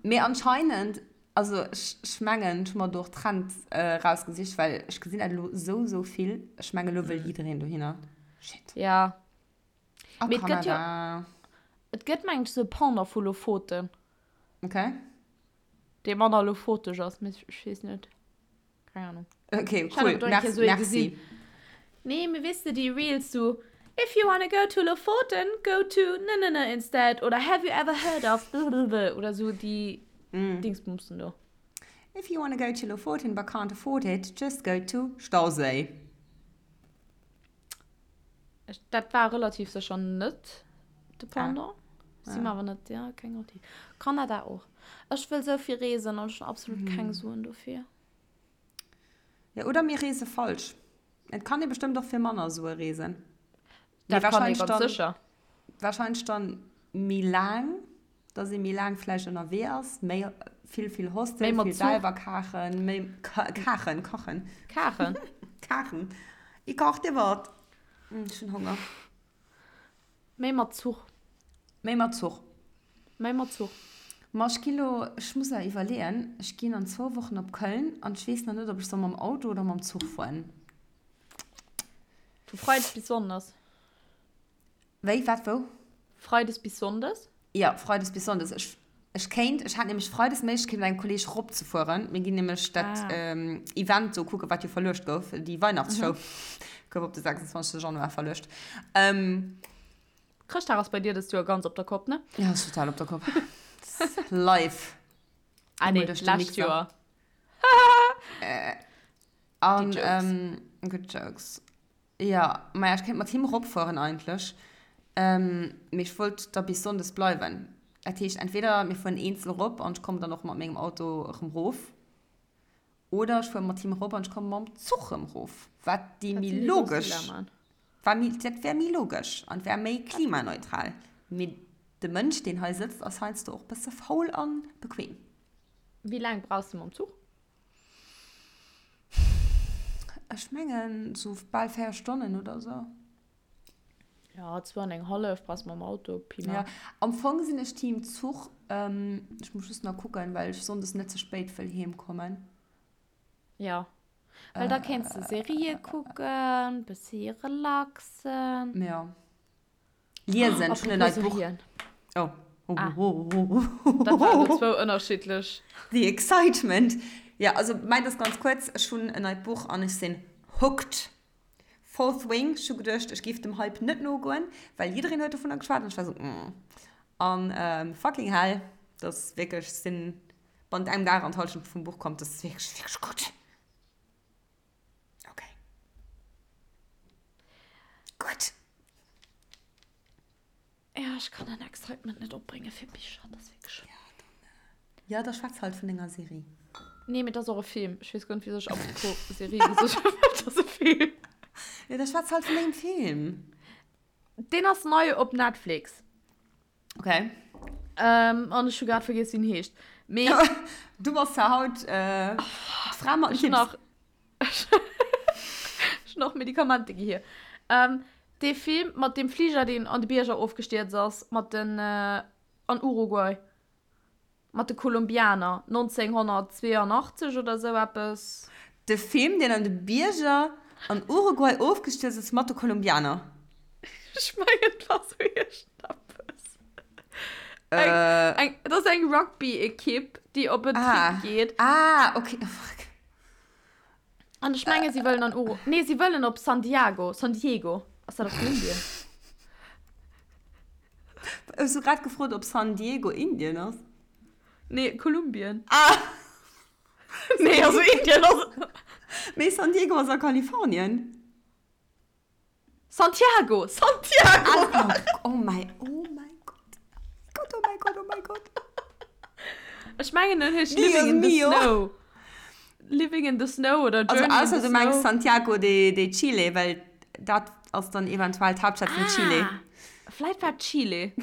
Mee anscheinend, also ech, ech mengen, ech hu mer do och Trend rausgesicht, well ech gesinn dat elo esou, esou vill. Ech mengen, elo wëll jiddereen dohinner. Shit. Ja. A Mee et gëtt jo, Kanada. et gëtt mengen ech esou e Pendant vu Lofoten. Okay. Dee manner lofoteg ass, mee ech weess net. Keng Ahnung. Okay, Ich cool. hatte Merci. so Merci. gesehen. Nee, mir wisst du, die Reels so, if you wanna go to Lofoten, go to ne ne ne instead. Oder have you ever heard of blablabla. Oder so die mm. Dingsbumsen do. If you wanna go to Lofoten but can't afford it, just go to Stausee. Dat war relativ sécher net de Pendant. Ah. Si mer awer net, ja, keng Garantie. Kanada och. Ech wëll sou vill reesen an ech hunn absolut keng Suen dofir. Ja, oder mir reese falsch. Et kann ee bestëmmt och fir manner Sue reesen. Dat kann ee ganz sécher. Wahrscheinlech dann méi laang, dass ee méi laang vläicht ënnerwee ass, méi vill, vill Hostel, vill selwer kachen, méi kachen, kachen. Kachen. Kachen. Ich koch dir wat. Ech hunn Honger. Méi mat Zuch. Méi mat Zuch. Méi mat Zuch. Ma ech gi lo, ech muss nach iwwerleeën, ech ginn an zwou Wochen op Köln an ech weess nach net, ob ech soll mam Auto oder mam Zuch fueren. Vu Freides bis Sonndes. Wéi, wat, wou? Freides bis Sonndes? Jo, Freides bis Sonndes. Ech, ech kéint, ech hat nämlech Freides d'Méiglechkeet mat engem Kolleeg ropzefueren. Mir ginn nämlech dat Event do kucken, wat jo verluecht gouf, déi Weihnachtsshow gouf op de 26. Januar verluecht. Chrëschtdag ass bei dir dëst Joer ganz op der Kopp, ne? Ja, ass total op der Kopp. Live. Ah nee, lescht Joer. An, good jokes. Jo, maja, ech kéint mat him eropfueren eigentlech, mee ech wollt da bis Sonndes bleiwen. Dat heescht, entweder mir fueren eenzel erop an ech kommen dann och mat mengem Auto erëm erof, oder ech fuere mat him erop an ech komme mam Zuch erëm erof, wat déi méi logesch, war méi, dat wär méi logesch an wär méi klimaneutral. Mee de Mënsch, deen hei sëtzt, ass heiansdo och bësse faul a bequem. Wéi laang brauchs de mam Zuch? Ech mengen sou bal 4 Stonnen oder sou. Ja, zwou an eng hallef brauchs mam Auto, Pi mal. Ja, am Fong sinn ech Team Zuch. Ech muss just nach kucken, well ech sonndes net ze spéit wëll heem kommen. Ja, well da kéints de Serië kucken, bëssi relaxen. Ja. Liesen, ech hunn en neit Buch. Oh. Ah. Dat waren elo zwou ënnerschiddlech. The excitement. Ja, also mäint ass ganz kuerz, ech hunn en neit Buch an ech sinn hooked. Fourth Wing, ech hu geduecht, ech géif dem Hype net nogoen, well jiddereen huet dovunner geschwat an ech war esou, mm. An fucking hell, dat ass wierklech, ech sinn bannent engem Dag an d'Hallschent vum Buch komm, dat ass wierklech, wierklech gutt. Okay. Gutt. Ja, ech kann den Excitement net opbrénge fir Bicher, dat ass wierklech. Ja, dann, äh, ja, da schwätz halt vun denger Serie. Nee, mee dat ass och e Film. Ech weess guer net, wisou ech apropos Serie gesot hunn, well dat ass e Film. Ja, da schwätz halt vun dengem Film. Deen ass nei op Netflix. Okay. Ähm, an ech hu grad vergiess, wéi en heescht. Mee. Du bass ja haut äh, d'Fra mat den Ech hunn Tipps. nach, ech hunn nach Medikamenter gi hier. Ähm, dee Film mat deem Fliger, deen an de Bierger ofgestierzt ass, mat den, äh, an Uruguay. Mat de Kolumbianer, 1982 oder sou eppes. De Film, deen an de Bierger an Uruguay ofgestierzt ass mat de Kolumbianer. Ech mengen, et war sou iergendeppes. Eng, eng, et ass eng Rugby-Ekipp, déi op en Trip geet. Ah, okay. Oh, fuck. An ech menge si wëllen an Uru, nee, si wëllen op San Diago, San Diego. Ass dat a Kolumbien? Hues du grad gefrot, ob San Diego Indien ass? Nee, Kolumbien. Ah! Nee, also Indien ass. Mee San Diego ass a Kalifornien. Santiago! Santiago! Ah, oh my, oh my God. Gott, oh my God, oh my God. Ech mengen, en heescht Living in the Snow. Living in the Snow oder Journey also, in the du mengst Santiago de, de Chile, well dat ass dann eventuell d'Haaptstad vun ah, Chile. Vläit war Chile.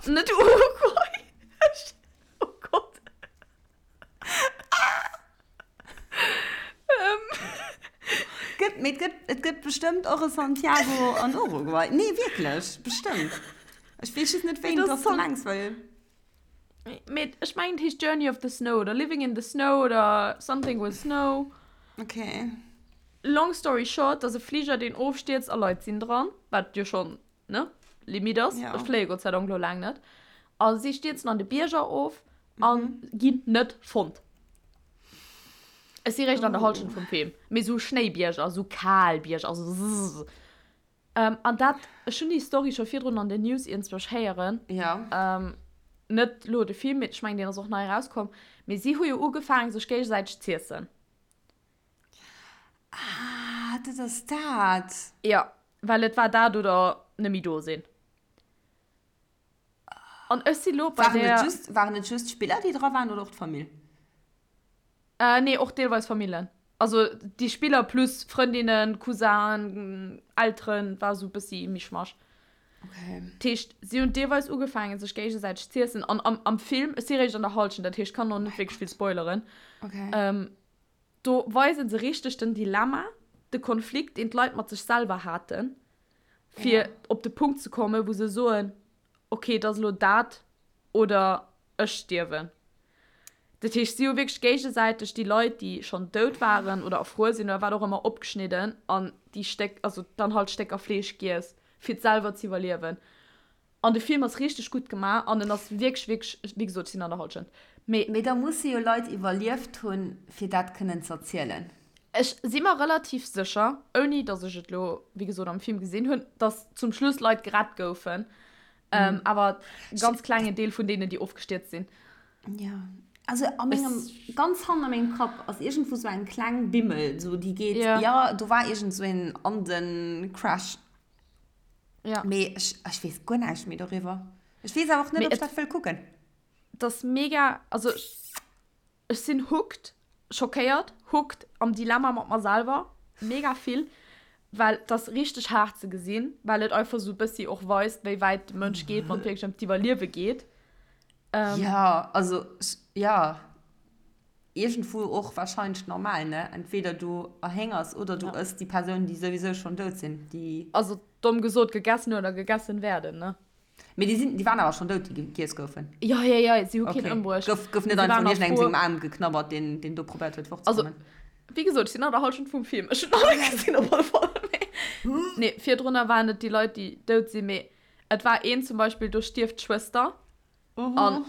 Net Uruguay. Oh Gott. Gëtt, mee et gëtt, et gëtt bestëmmt och e Santiago an Uruguay. Nee, wierklech, bestëmmt. Ech weess just net, wéi dass du mengs, well. Mee ech mengen, et heescht Journey of the Snow oder Living in the Snow oder Something with Snow. Okay. Long story short, et ass e Fliger, deen ofstierzt a Leit sinn dran, wat jo schonn, ne, Limit ass. Ja. Ech fléie Gott sei Dank lo laang net. A si stierzen an de Bierger of a ginn net fonnt. Ech si réischt an der Hallschent vum Film. Mee sou Schnéibierger, sou kal Bierger, also zzzz. An dat, ech hunn déi Story scho virdrun an den News iergendzwousch héieren. Ja. Net lo de Film, mee ech mengen, deen ass och nei erauskomm. Mee si hu jo ugefaangen, sech géigesäiteg z'iessen. Ah, dat ass dat. Jo, well et war dat oder net méi do sinn. An ech si lo bei Waren der. et just, waren et just d'Spiller, déi dra waren, oder och d'Famill? Äh, nee, och deelweis Famillen. Also déi Spiller plus Frëndinnen, Cousinen, Elteren, war esou e bëssi Mischmasch. Okay. Dat heescht, si hunn deelweis ugefaangen, sech géigesäiteg z'iessen. An am, am Film, ech si réischt an der Hallschent, dat heescht, ech kann och net wierklech vill spoileren. Okay. Ähm, do weise se richteg den Dilemma, de Konflikt, deen d'Leit mat sech selwer haten, fir Ja. op de Punkt ze kommen, wou se soen, okay, et ass elo dat oder ech stierwen. Dat heescht, si hu wierklech géigesäiteg déi Leit, déi schonn dout waren oder erfruer sinn oder wat och ëmmer, opgeschnidden an déi Stéck, also dann halt Stécker Fleesch giess, fir et selwer z'iwwerliewen. An de Film ass richteg gutt gemaach an en ass wierklech, wierklech, wéi gesot, ech sinn an der Hallschent, mee. Mee da musse jo Leit iwwerlieft hunn, fir dat kënnen z'erzielen. Ech si mer relativ sécher, ouni datt ech et elo, wéi gesot, am Film gesinn hunn, datt zum Schluss Leit gerett goufen, awer e ganz klengen Deel vun deenen, déi ofgestierzt sinn. Jo, also a mengem, ganz hannen a mengem Kapp ass iergendwou sou eng kleng Bimmel, sou déi geet, jo, do war iergend sou een Anden-Crash. Ja. Mee ech, ech weess guer näischt méi doriwwer. Ech weess awer och net, ob ech dat wëll kucken. Et ass mega, also ech sinn hooked, schockéiert, hooked, am Dilemma mat mer selwer, mega vill, well et ass richteg haart ze gesinn, well et einfach sou e bëssi och weist, wéi wäit de Mënsch geet, wann et wierklech ëm d'Iwwerliewe geet. Jo, also jo, iergendwou och wahrscheinlech normal, ne? Entweder du erhéngers oder du ëss déi Persoun, déi souwisou schonn dout sinn, déi. Also domm gesot, gegessen oder gegessen werden, ne? Mee déi sinn, déi waren awer schonn dout, déi giess goufen? Jo, jo, jo, si hu keen ëmbruecht. Gouf, gouf net einfach vun iergendengem sengem Aarm geknabbert, deen, deen do probéiert huet, fortzekommen? Also, wéi gesot, ech sinn an der Hallschent vum Film. Ech hunn alles gesinn op alle Fall. Mee, nee, virdrunner waren et déi Leit, déi dout sinn, mee et war een zum Beispill, do stierft d'Schwëster. An,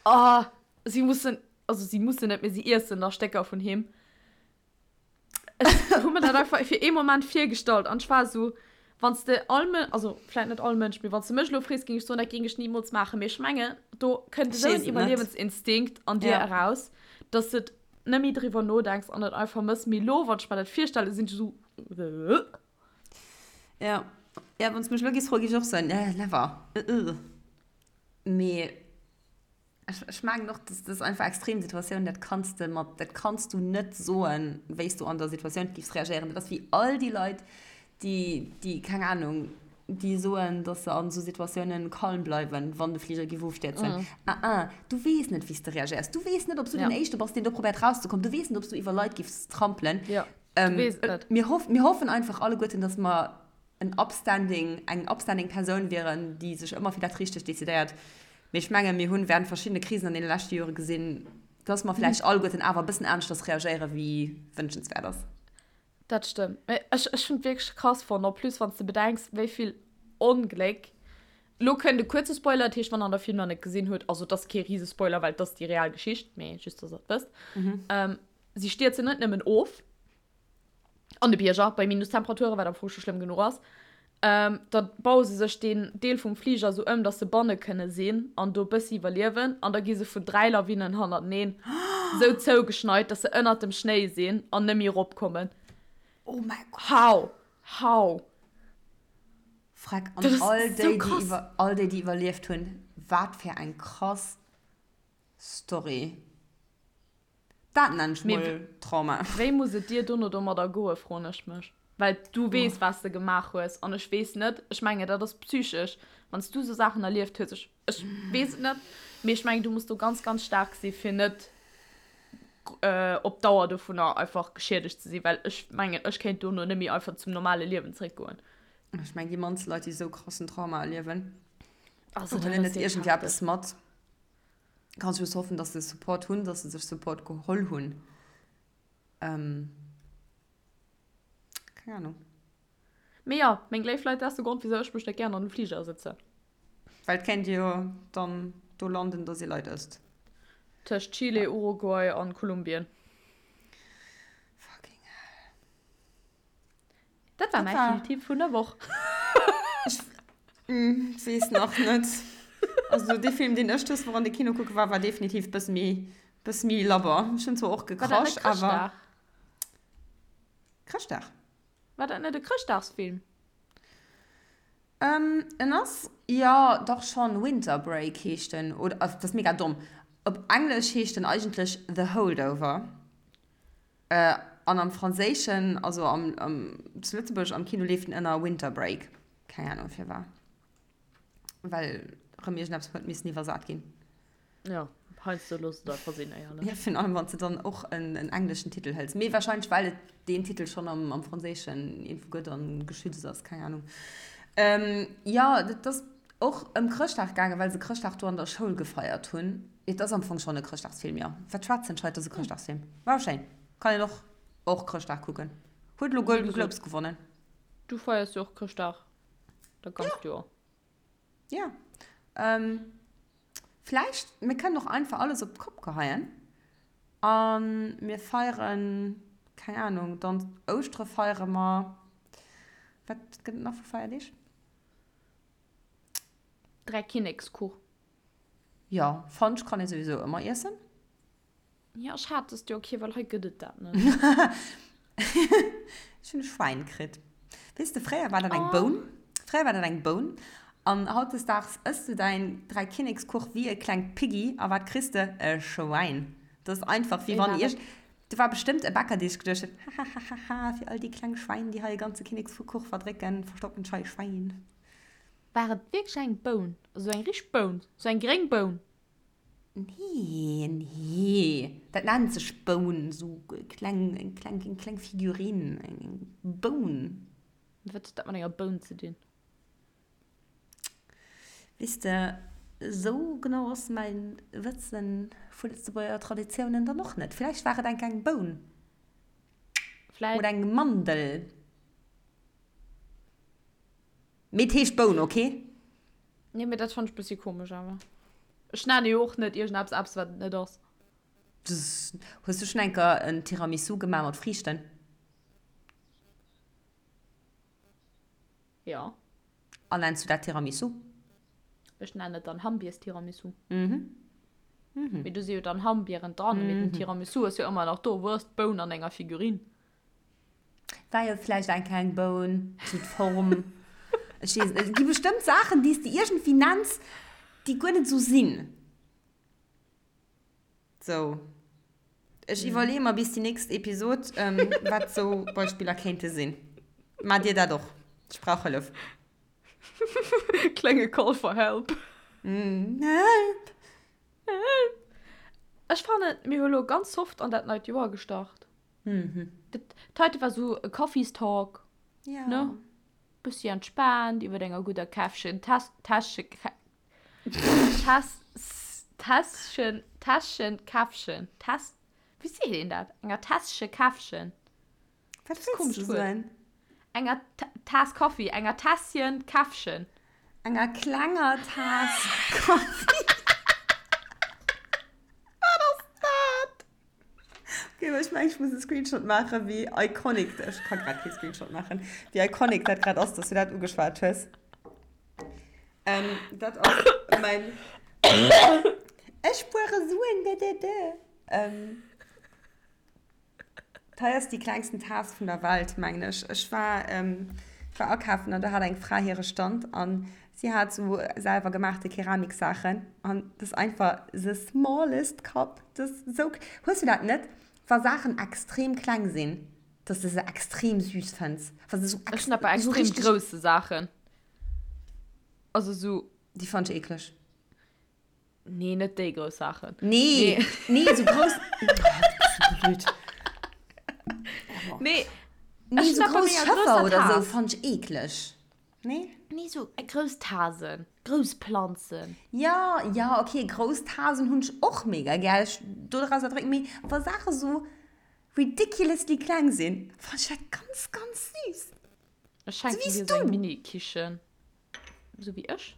oh, si mussen, also si mussen net, mee si iessen da Stécker vun him. Ech hu mir dat einfach fir ee Moment virgestallt an ech war esou, wann s de all Mën-, also vläit net all Mënsch, mee wann s de mech elo frees, géing ech soen, dat géing ech nimools maachen. Mee ech mengen, do kënnt esou en Iwwerliewensinstinkt an dir eraus, dass de net méi driwwer nodenks an et einfach mëss. Mee elo, wann ech mer dat virstellen, sinn ech esou, Äh. Ja, ja, wann s de mech elo géifs froen, géif ech och soen, Never. Mee ech, ech mengen och, dass das einfach extrem Situatioun, dat kanns de mat, dat kanns du net soen, wéi s du an der Situatioun giffs reagéieren. Dat ass wéi all déi Leit, déi, déi, keng Ahnung, déi soen, dass se an esou Situatiounen calm bleiwen, wann de Fliger giff ofstierzen. Ah ah, du weess net, wéi s de reagéiers. Du weess net, ob s du den Éischte bass, deen do probéiert rauszekommen. Du weess net, ob s du iwwer Leit giffs trampelen. Ja, du weess et net. Mir hoff, mir hoffen einfach alleguerten, dass mer en upstanding, eng upstanding Persoun wieren, déi sech ëmmer fir dat Richtegt decidéiert. Mee ech mengen, mir hunn während verschiddene Krisen an deene leschte Jore gesinn, dass mer vläicht alleguerten awer e bëssen aneschters reagéieren, wéi wënschenswäert ass. Dat stëmmt. Mee ech, ech hunn et wierklech krass fonnt, en plus wann s de bedenks, wéi vill Ongléck, lo kënnt e kuerze Spoiler, dat heescht, wann der de Film nach net gesinn hutt, also et ass kee Risespoiler, well et ass déi real Geschicht, mee just, dass der et wësst, si stierzen net nëmmen of, An de Bierger, bei Minustemperaturen, wat am Fong scho schlëmm genuch ass. Ähm, da baue se sech deen Deel vum Fliger esou ëm, dass se banne kënne sinn an do bëssi iwwerliewen. An da gi se vun 3 Lawinen hannerteneen esou zougeschneit, dass se ënnert dem Schnéi sinn an net méi eropkommen. Oh mäi Gott. How? How? Freck, an all déi, déi iwwer, all déi, déi iwwerlieft hunn, wat fir eng krass Story. Dat nennen ech mol Trauma. Wéi muss et dir dono domadder goen, froen ech mech. Well du weess, wat s de gemaach hues an ech weess net, ech mengen, dat ass psychesch, wann s du esou Saachen erlieft hues, ech, ech weess et net, mee ech mengen, du muss do ganz, ganz staark si fir net op Dauer dovunner einfach geschiedegt ze sinn, well ech mengen, ech kéint dono net méi einfach zum normale Liewen zeréckgoen. Ech mengen, déi mannst Leit, déi esou krassen Trauma erliewen, huelen net iergendwéi eppes mat. Kann just hoffen, dass se Support hunn, dass se sech Support geholl hunn. Ähm, keng Ahnung. Mee jo, meng léif Leit, dat ass de Grond, wisou ech mech net gären an den Fliger sëtzen. Well et kéint jo dann do landen, dass ee Leit ësst. Tëscht Chile, Uruguay an Kolumbien. Fucking hell. Dat war mäi Filmtipp vun der Woch. Ech weess nach net. Also dee Film, deen ech dës Woch an de Kino kucke war, war definitiv bësse méi, bësse méi labber. Ech hunn zwar och gekrasch, awer. Chrëschtdag? War dat net e Chrëschtdagsfilm? En ass, jo, dach schonn, Winter Break heescht en, oder, dat ass mega domm, op Englesch heescht en eigentlech The Holdover. An am Franséischen, also am, am, zu Lëtzebuerg am Kino leeft en ënner Winter Break. Keng Ahnung firwat. Well rëm iergendeppes huet missen iwwersat ginn. Jo, heiansdo looss et einfach sinn, éierlech. Jo, virun allem wann s de dann och en, en engleschen Titel hëls. Mee warscheinlech well et deen Titel schonn am, am Franséischen iergendwou gëtt an geschützt ass, keng Ahnung. Jo, dat ass och ëm Chrëschtdag gaangen, well se Chrëschtdag do an der Schoul gefeiert hunn. Et ass am Fong schonn e Chrëschtdagsfilm, jo. Wat schwätzen ech hei, et ass e Chrëschtdagsfilm. War schéin. Kann een och och Chrëschtdag kucken. Huet elo Golden Globes gewonnen. Du feiers jo och Chrëschtdag dat ganzt Joer. Jo. Vläicht, mir kënnen och einfach alles op d'Kopp geheien a mir feieren, keng Ahnung, dann Ouschtere feiere mer. Wat gëtt et nach vu Feierdeeg? Dräikinnekskuch. Jo, Fudge kann ee souwisou ëmmer iessen. Jo, ech hat dëst Joer kee, well hei gëtt et dat net. Ech hunn e Schwäin kritt. Weess de, fréier war dat eng Boun. Fréier war dat eng Boun. An hautdesdaags ëss du däin Dräikinnekskuch wéi e klengt Piggy a wat kriss de? E Schwäin. Dat ass einfach, wéi wann ierg. Do war bestëmmt e Bäcker, dee sech geduecht huet, Hahahaha, fir all déi kleng Schwäin, déi hei e ganze Kinnekskuch verdrécken, verstoppen ech hei e Schwäin. War et wierklech eng Boun? Also eng richteg Boun? Sou eng gréng Boun? Nee, nee, dat nennt sech Boun, sou kleng, eng kleng, eng kleng Figurine, eng Boun. Wat huet dat mat enger Boun ze dinn? Weess de, sou genau ass mäin Wëssen vu Lëtzebuerger Traditiounen dann och net. Vläicht war et enk eng Boun. Vläicht. Oder eng Mandel. Mee et heescht Boun, ok? Nee, mee dat fannt ech bessi komesch awer. Ech nenne jo och net iergendeppes eppes wat et net ass. Hues du schon enker en Tiramisu gemaach mat Friichten? Jo. An nenns du dat Tiramisu? Ech nennen et dann Hammbierstiramisu. Mhm. Mee do si jo dann Hammbieren dran, mee den Tiramisu ass jo ëmmer nach do. Wou ass d'Boun an enger Figurine? War jo vläicht eng kleng Boun, sou d'Form. Ech weess et net. Et gi bestëmmt Saachen, déi s de iergendwéi nenns, déi guer net esou sinn. Sou. Ech iwwerleeë mer bis déi nächst Episod, wat sou Beispiller kéinte sinn. Maacht Dir dat och? Ech brauch Hëllef. Klenge Call for help. Help! Help! Ech fannen, mir hu lo ganz soft an dat neit Joer gestart. Mhm. Dat heite war sou e Coffeestalk. Ja. Ne? Bëssi entspaant iwwer enger gudder Käffchen, Täss, Täsche, Täss, Tässchen, Tässchen, Käffchen, Täss, wéi seet een dat? Enger Tässche Käffchen. Wat wëlls du soen? Enger Taass Kaffi, enger Tässchen Käffchen. Enger klenger Taass Kaffi. Wat ass dat? Okay, aber ich meine, ich muss einen Screenshot machen, wie iconic, ich kann gerade keinen Screenshot machen, wie iconic das gerade ist, dass du das angeschwärzt hast. Ähm, das ist mein... Ich spare Suen, da, da, da. Ähm, das ist die kleinsten Tasse von der Welt, meine ich. Ich war, ähm, Ech war akafen an do hat eng Fra hire Stand an si hat sou selwer gemaachte Keramiksaachen an dat ass einfach the smallest cup. Dat ass sou, hues du dat net, wa Saachen extrem kleng sinn, dass de se extrem süß fënns? Wa se sou Ech hunn dat bei sou extrem richteg. grousse Saachen. Also sou. Déi fannt ech eekleg. Nee, net déi grouss Saachen. Nee, nee, nee sou grouss. Oh, du bist so blöd. Nee, nee sou grouss Schëffer oder sou fannt ech eekleg. Nee? Nee, sou grouss Tasen, grouss Planzen. Ja, ja, okay, grouss Tasen hunn ech och mega gär. Ech doraus erdrécken, mee wa Saache sou ridiculously kleng sinn, fannt ech dat ganz, ganz süß. Ech schenken dir sou eng Mini-Kichen. Sou wéi ech.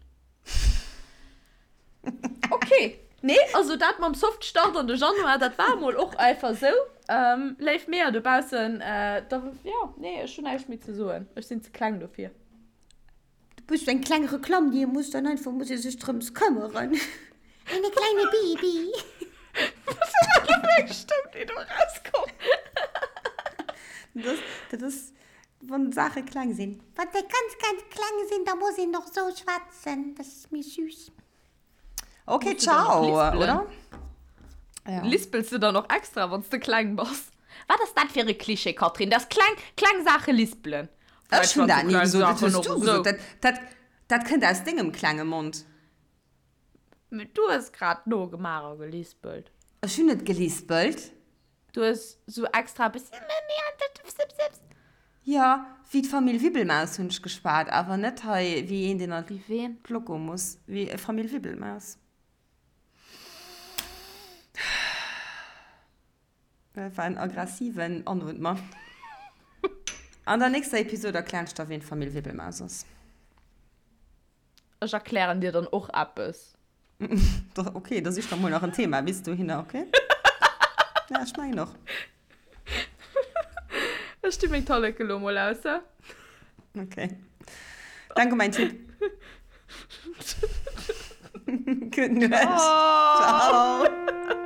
Okay. Nee, also dat mam Soft Start an de Januar, dat war mol och einfach sou. Ähm, léif Meeër dobaussen, äh, da, ja, nee, ech hunn näischt méi ze soen. Ech sinn ze kleng dofir. Du bist eng kleng Reklamm, déi ee muss dann einfach, muss ee sech drëms këmmeren. Eine kleine Baby. Was war dat fir eng Stëmm, déi do erauskomm? Dat ass, dat ass Wann d'Saache kleng sinn. Wann se ganz, ganz kleng sinn, da muss een och sou schwätzen. Dat ass méi süß. Ok, ciao, oder? Ja. Lispels du dann och extra, wann s de kleng bass? Wat ass dat fir e Klischee, Catherine, dass kleng, kleng Saache lispelen? Ech hunn dat ni gesot, dat hues du gesot. Dat, dat, dat kënnt aus dengem klenge Mond. Mee du hues grad nogemaach a gelispelt. Ech hunn net gelispelt. Du hues sou extra e bëssi. Jo, wéi d'Famill Wibbelmaus hunn ech geschwat, awer net hei wéi een, deen an d'Loco muss. Wéi Famill Wibbelmaus. Dat war en aggressiven Anootmer. An der nächster Episode erklären ech der, ween d'Famill Wibbelmaus ass. Ech erklären dir dann och eppes. Ok, da sich der mol nach en Thema bis dohinner, ok? Ja, ech mengen och. Ech di meng Talleke lo mol aus, he? Ok. Danke, mein Tipp. Gutt Nuecht. Ciao. Ciao.